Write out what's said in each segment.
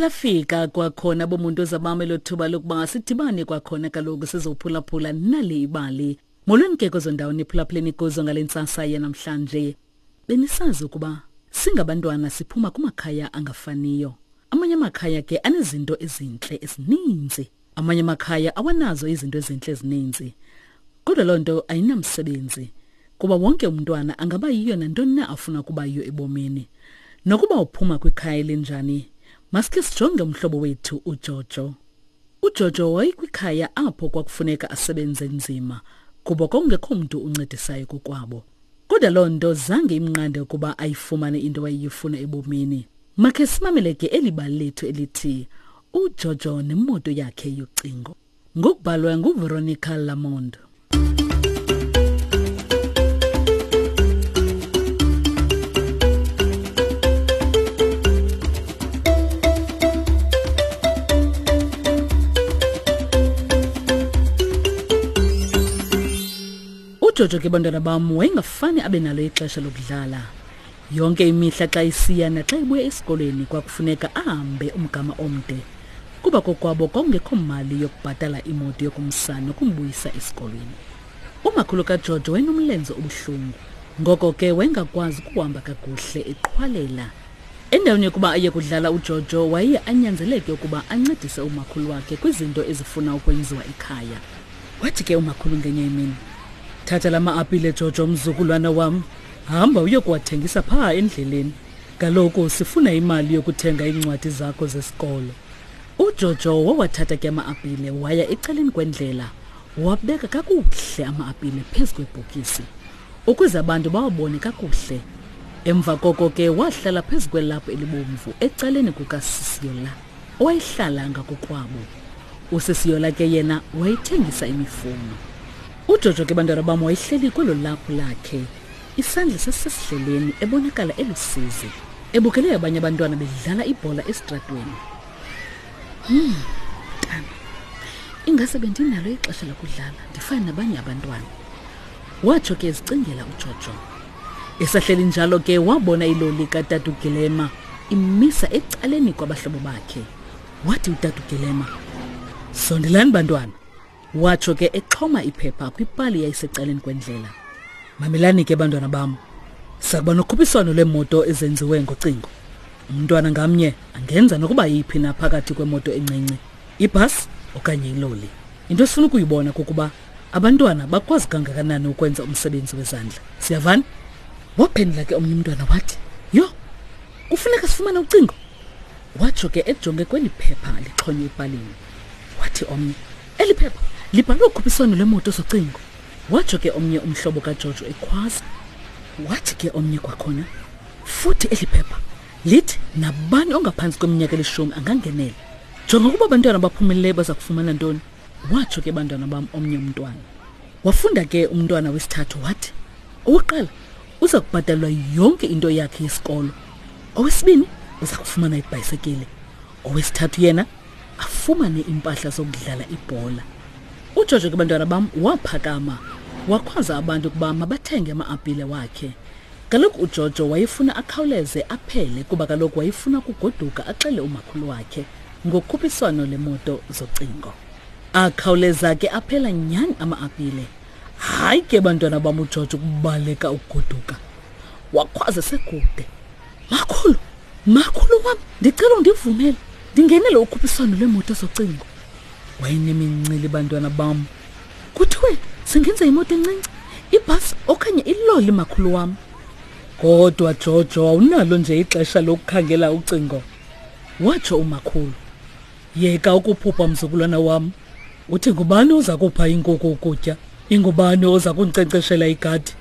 Liphinde lafika kwakhona bomuntu ozabame lo thuba lokuba sidibane kwakhona kaloku sizophulaphula nali ibali. Molweni ke kwezo ndawo niphulaphuleni kuzo ngale ntsasa yanamhlanje. Benisazi ukuba singabantwana siphuma kumakhaya angafaniyo. Amanye amakhaya ke anezinto ezintle ezininzi. Amanye amakhaya awanazo izinto ezintle ezininzi. Kodwa loo nto ayinamsebenzi kuba wonke umntwana angaba yiyo nantoni na afuna ukuba yiyo ebomini. Nokuba uphuma kwikhaya elinjani, masikhe sijonge umhlobo wethu uJojo. UJojo wayekwikhaya apho kwakufuneka asebenze nzima kuba kwakungekho mntu uncedisayo kokwabo. Kodwa loo nto zange imnqande ukuba ayifumane into wayeyifuna ebomini. Makhe simamele ke eli bali lethu elithi uJojo nemoto yakhe yocingo. Ngokubhalwa nguVeronica Lamond. UJojo ke bantwana bam wayengafani abe nalo ixesha lokudlala. Yonke imihla xa isiya naxa ibuya esikolweni kwakufuneka ahambe umgama omde kuba kokwabo kwakungekho mali yokubhatala imoto yokumsa nokumbuyisa esikolweni. Umakhulu kaJojo wayenomlenze obuhlungu, ngoko ke wayengakwazi ukuhamba kakuhle eqhwalela. Endaweni yokuba aye kudlala uJojo waye anyanzeleke ukuba ancedise umakhulu wakhe kwizinto ezifuna ukwenziwa ekhaya. Wathi ke umakhulu ngenye imini, thatha la ma-apile Jojo mzukulwana wam, hamba uyokuwathengisa phaa endleleni. Kaloku sifuna imali yokuthenga iincwadi zakho zesikolo. UJojo wawathatha ke ama-apile waya ecaleni kwendlela, wabeka kakuhle ama-apile phezu kwebhokisi ukuze abantu bawabone kakuhle. Emva koko ke wahlala phezu kwelaphu elibomvu ecaleni kukaSisiyola owayehlala ngakokwabo. USisiyola ke yena wayethengisa imifuno. UJojo ke bantwana bam wayehleli kwelo laphu lakhe, isandla sasisesidleleni, ebonakala elusizi, ebukele abanye abantwana bedlala ibhola esitratweni. Mntana, ingase bendinalo ixesha lokudlala ndifane nabanye abantwana, watsho ke ezicingela uJojo. Esahleli njalo ke wabona iloli katata uGilema imisa ecaleni kwabahlobo bakhe. Wathi utata uGilema, sondelani bantwana, watsho ke exhoma iphepha kwipali yayisecaleni kwendlela. Mamelani ke bantwana bam, sakuba nokhuphiswano lweemoto ezenziwe ngocingo. Umntwana ngamnye angenza nokuba yiphi na phakathi kwemoto encinci, ibhasi okanye iloli. Into esifuna ukuyibona kukuba abantwana bakwazi kangakanani ukwenza umsebenzi wezandla. Siyavana? Waphendula ke omnye umntwana wathi, yho, kufuneka sifumane ucingo. Watsho ke ejonge kweli phepha lixhonywe epalini. Wathi omnye, eli phepha libhalwe ukhuphiswano lwemoto zocingo. Watsho ke omnye umhlobo kaJojo ekhwaza. Wathi ke omnye kwakhona, futhi eli phepha lithi nabani ongaphantsi kweminyaka elishumi angangenela. Jonga ukuba abantwana abaphumeleleyo baza kufumana ntoni. Watsho ke bantwana bam omnye umntwana. Wafunda ke umntwana wesithathu wathi, owokuqala uza kubhatalelwa yonke into yakhe yesikolo. Owesibini uza kufumana ibhayisekile. Owesithathu yena afumane impahla zokudlala ibhola. UJojo ke bantwana bam waphakama wakhwaza abantu ukuba mabathenge ama-apile wakhe. Kaloku uJojo wayefuna akhawuleze aphele kuba kaloku wayefuna ukugoduka axele umakhulu wakhe ngokhuphiswano lemoto zocingo. Akhawuleza ke aphela nyhani ama-apile. Hayi ke bantwana bam uJojo ukubaleka ukugoduka. Wakhwaza sekude, makhulu, makhulu wam, ndicela undivumele ndingenele ukhuphiswano lweemoto zocingo. Wayenemincili bantwana bam. Kuthiwe singenza imoto encinci, ibhasi okanye iloli makhulu wam. Kodwa Jojo awunalo nje ixesha lokukhangela ucingo, watsho umakhulu. Yeka ukuphupha mzukulwana wam. Uthi ngubani oza kupha inkukhu ukutya? Ingubani oza kundinkcenkceshela igadi?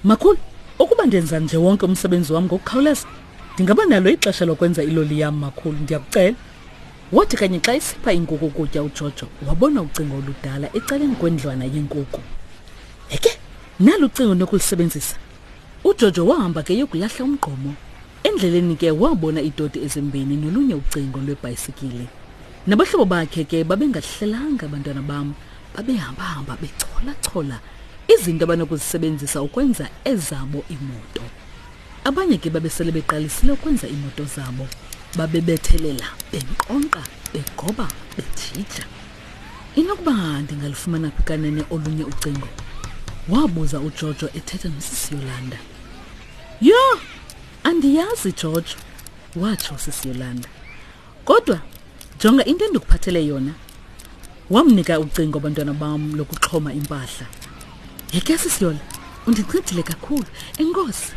Makhulu, ukuba ndenza nje wonke umsebenzi wam ngokukhawuleza, ndingaba nalo ixesha lokwenza iloli yam makhulu, ndiyakucela. Wathi kanye xa isipha inkukhu ukutya uJojo, wabona ucingo oludala ecaleni kwendlwana yenkukhu. Heke, nalu ucingo nokulisebenzisa. UJojo wahamba ke yokulahla umgqomo. Endleleni ke wabona iitoti ezimbini nolunye ucingo lwebhayisikile. Nabahlobo bakhe ke babengahlelanga abantwana bam, babehambahamba bechola-chola izinto abanokuzisebenzisa ukwenza ezabo iimoto. Abanye ke babesele beqalisile ukwenza iimoto zabo. Babebethelela, benkqonkqa, begoba, bejija. Inokuba ndingalufumana phi kanene olunye ucingo? Wabuza uJojo ethetha nosisi Yolanda. Yho, andiyazi Jojo, watsho usisi Yolanda. Kodwa jonga into endikuphathele yona. Wamnika ucingo abantwana bam lokuxhoma impahla. Yeke sisi Yola, undincedile kakhulu. Enkosi.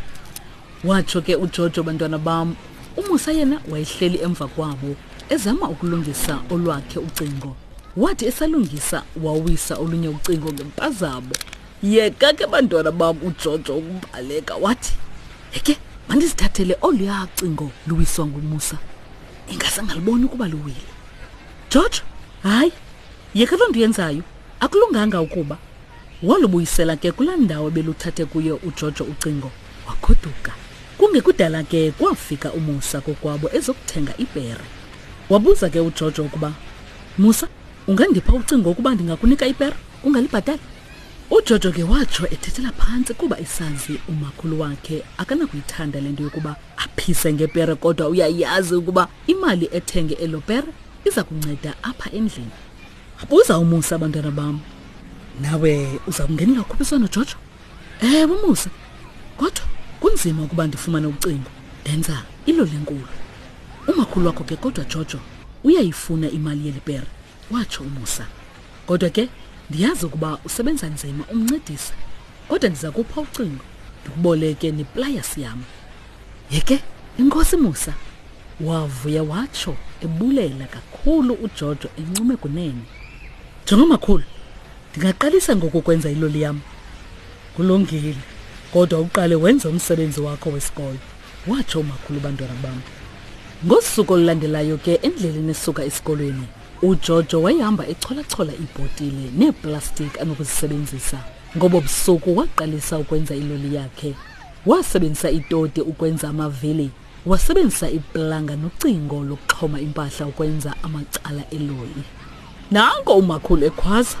Watsho ke uJojo bantwana bam. UMusa yena wayehleli emva kwabo ezama ukulungisa olwakhe ucingo. Wathi esalungisa wawisa olunye ucingo ngempazamo. Yeka ke bantwana bam uJojo ukubaleka wathi, "Heke, mandizithathele oluya cingo luwiswa nguMusa." Ingase angaliboni ukuba luwile. Jojo, hayi, yeka loo nto uyenzayo. Akulunganga ukuba. Walubuyisela ke kulaa ndawo ebeluthathe kuyo uJojo ucingo, wagoduka. Kungekudala ke kwafika uMusa kokwabo ezokuthenga ipere. Wabuza ke uJojo ukuba, Musa, ungandipha ucingo ukuba ndingakunika ipere ungalibhatali? UJojo ke watsho ethethela phantsi kuba esazi umakhulu wakhe akanakuyithanda le nto yokuba aphise ngepere kodwa uyayazi ukuba imali ethenge elo pere iza kunceda apha endlini. Buza uMusa abantwana bam. Nawe uza kungenela ukhuphiswano Jojo? Ewe Musa. Kodwa kunzima ukuba ndifumane ucingo. Ndenza iloli enkulu. Umakhulu wakho ke kodwa Jojo uyayifuna imali yeli pere, watsho uMusa. Kodwa ke ndiyazi ukuba usebenza nzima umncedisa. Kodwa ndiza kupha ucingo ndikuboleke neplayasi yam. Yeke inkosi Musa wavuya watsho ebulela kakhulu uJojo encume kunene. Jonga makhulu, ndingaqalisa ngoku ukwenza iloli yam. Kulungile, kodwa uqale wenze umsebenzi wakho wesikolo, watsho umakhulu bantwana bam. Ngosuku olulandelayo ke endleleni esuka esikolweni, uJojo wayehamba echolachola iibhotile neeplastiki anokuzisebenzisa. Ngobo busuku waqalisa ukwenza iloli yakhe. Wasebenzisa itoti ukwenza amavili, wasebenzisa iplanga nocingo lokuxhoma impahla ukwenza amacala eloli. Nanko umakhulu ekhwaza.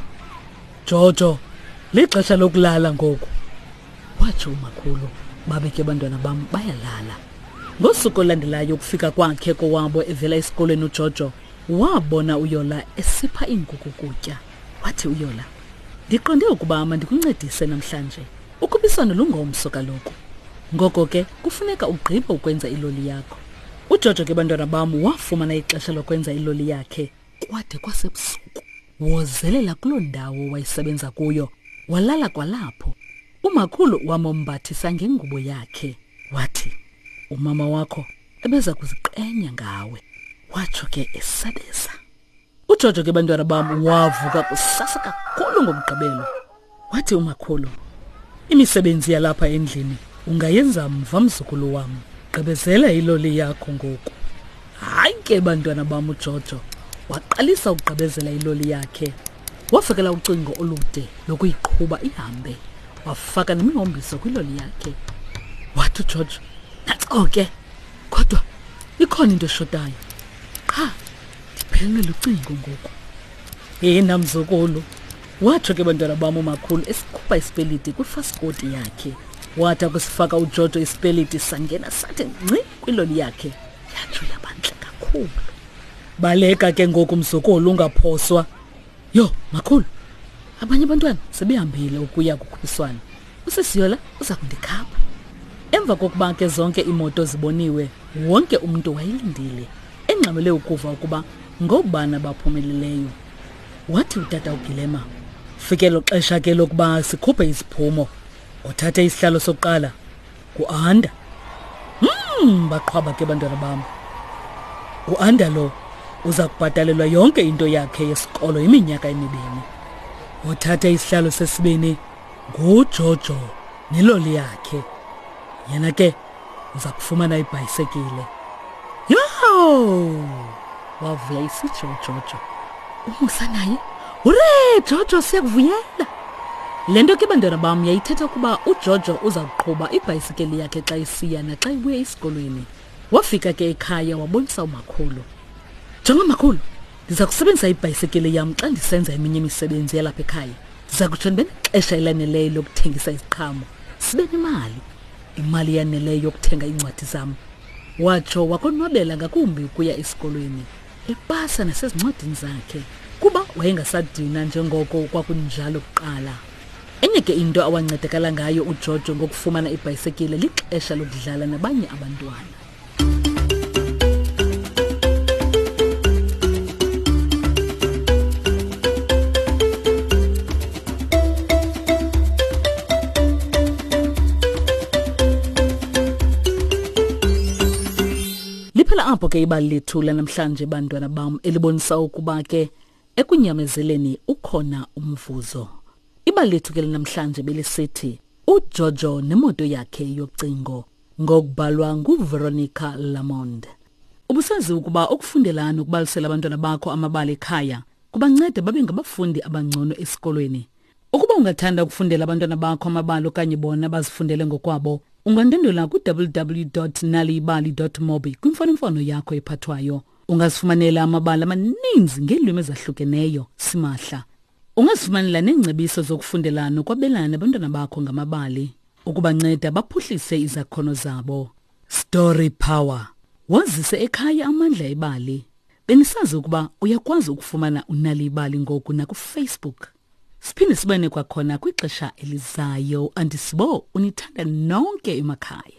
Jojo, lixesha lokulala ngoku. Watsho umakhulu, babe ke abantwana bam bayalala. Ngosuku olulandelayo ukufika kwakhe kowabo evela esikolweni uJojo, wabona uYola esipha iinkukhu ukutya. Wathi uYola, Ndiqonde ukuba mandikuncedise namhlanje. Ukhuphiswano lungomso kaloku. Ngoko ke kufuneka ugqibe ukwenza iloli yakho. UJojo ke bantwana bam wafumana ixesha lokwenza iloli yakhe kwade kwasebusuku. Wozelela kuloo ndawo wayesebenza kuyo, walala kwalapho. Umakhulu wamombathisa ngengubo yakhe. Wathi, umama wakho ebeza kuziqenya ngawe. Watsho ke esabeza. Ujojo ke bantwana bam wavuka kusasa kakhulu ngomgqibelo. Wathi umakhulu, imisebenzi yalapha endlini ungayenza mva mzukulu wam. Gqibezela iloli yakho ngoku. Hayi ke bantwana bam uJojo waqalisa ukugqibezela iloli yakhe. Wafakela ucingo olude lokuyiqhuba ihambe. Wafaka nemihombiso kwiloli yakhe. Wathi uJojo, nantso ke kodwa ikhona into eshotayo. Qha ndiphelelwe lucingo ngoku. Yena mzukulu, watsho ke bantwana bam umakhulu esikhupha isipeliti kwifasikoti yakhe. Wathi akusifaka uJojo isipeliti sangena sathi ngci kwiloli yakhe, yatsho yabantle kakhulu. Baleka ke ngoku mzukulu ungaphoswa. Yho, makhulu, abanye abantwana sebehambile ukuya kukhuphiswano. Usisiyola uza kundikhapha. Emva kokuba ke zonke iimoto ziboniwe, wonke umntu wayelindile, engxamele ukuva ukuba ngoobani abaphumeleleyo. Wathi utata uGilema, Fikelo xesha ke lokuba sikhuphe iziphumo. Othathe isihlalo sokuqala nguAnda. Baqhwaba ke bantwana bam. UAnda lo uza kubhatalelwa yonke into yakhe yesikolo iminyaka emibini. Othathe isihlalo sesibini nguJojo neloli yakhe. Yena ke uza kufumana ibhayisekile. Yho! Wavuya isitsho uJojo. UMusa naye, Hure Jojo siyakuvuyela. Le nto ke bantwana bam yayithetha ukuba uJojo uza kuqhuba ibhayisikeli yakhe xa isiya naxa ibuya esikolweni. Wafika ke ekhaya wabonisa umakhulu. Jonga makhulu, ndiza kusebenzisa ibhayisekile yam xa ndisenza eminye imisebenzi yalapha ekhaya. Ndiza kutsho ndibe nexesha elaneleyo lokuthengisa iziqhamo, sibe nemali. Imali eyaneleyo yokuthenga iincwadi zam. Watsho wakonwabela ngakumbi ukuya esikolweni, epasa nasezincwadini zakhe, kuba wayengasadinwa njengoko kwakunjalo kuqala. Enye ke into awancedakala ngayo uJojo ngokufumana ibhayisekile lixesha lokudlala nabanye abantwana. Liphela apho ke ibali lethu lanamhlanje bantwana bam elibonisa ukuba ke ekunyamezeleni ukhona umvuzo. Ibali lethu ke lanamhlanje belisithi uJojo nemoto yakhe yocingo ngokubhalwa nguVeronica Lamond. Ubusazi ukuba ukufundela nokubalisela abantwana bakho amabali ekhaya kubanceda babe ngabafundi abangcono esikolweni. Ukuba ungathanda ukufundela abantwana bakho amabali okanye bona bazifundele ngokwabo, ungandwendwela ku-www.naliyibali.mobi kwimfonomfono yakho ephathwayo. Ungazifumanela amabali amaninzi ngeelwimi ezahlukeneyo simahla. Ungazifumanela neengcebiso zokufundela nokwabelana nabantwana bakho ngamabali ukubanceda baphuhlise izakhono zabo. Story Power. Wazise ekhaya amandla ebali. Benisazi ukuba uyakwazi ukufumana unali ibali ngoku nakuFacebook. Siphinde sibane kwakhona kwixesha elizayo. Andisibo unithanda nonke emakhaya.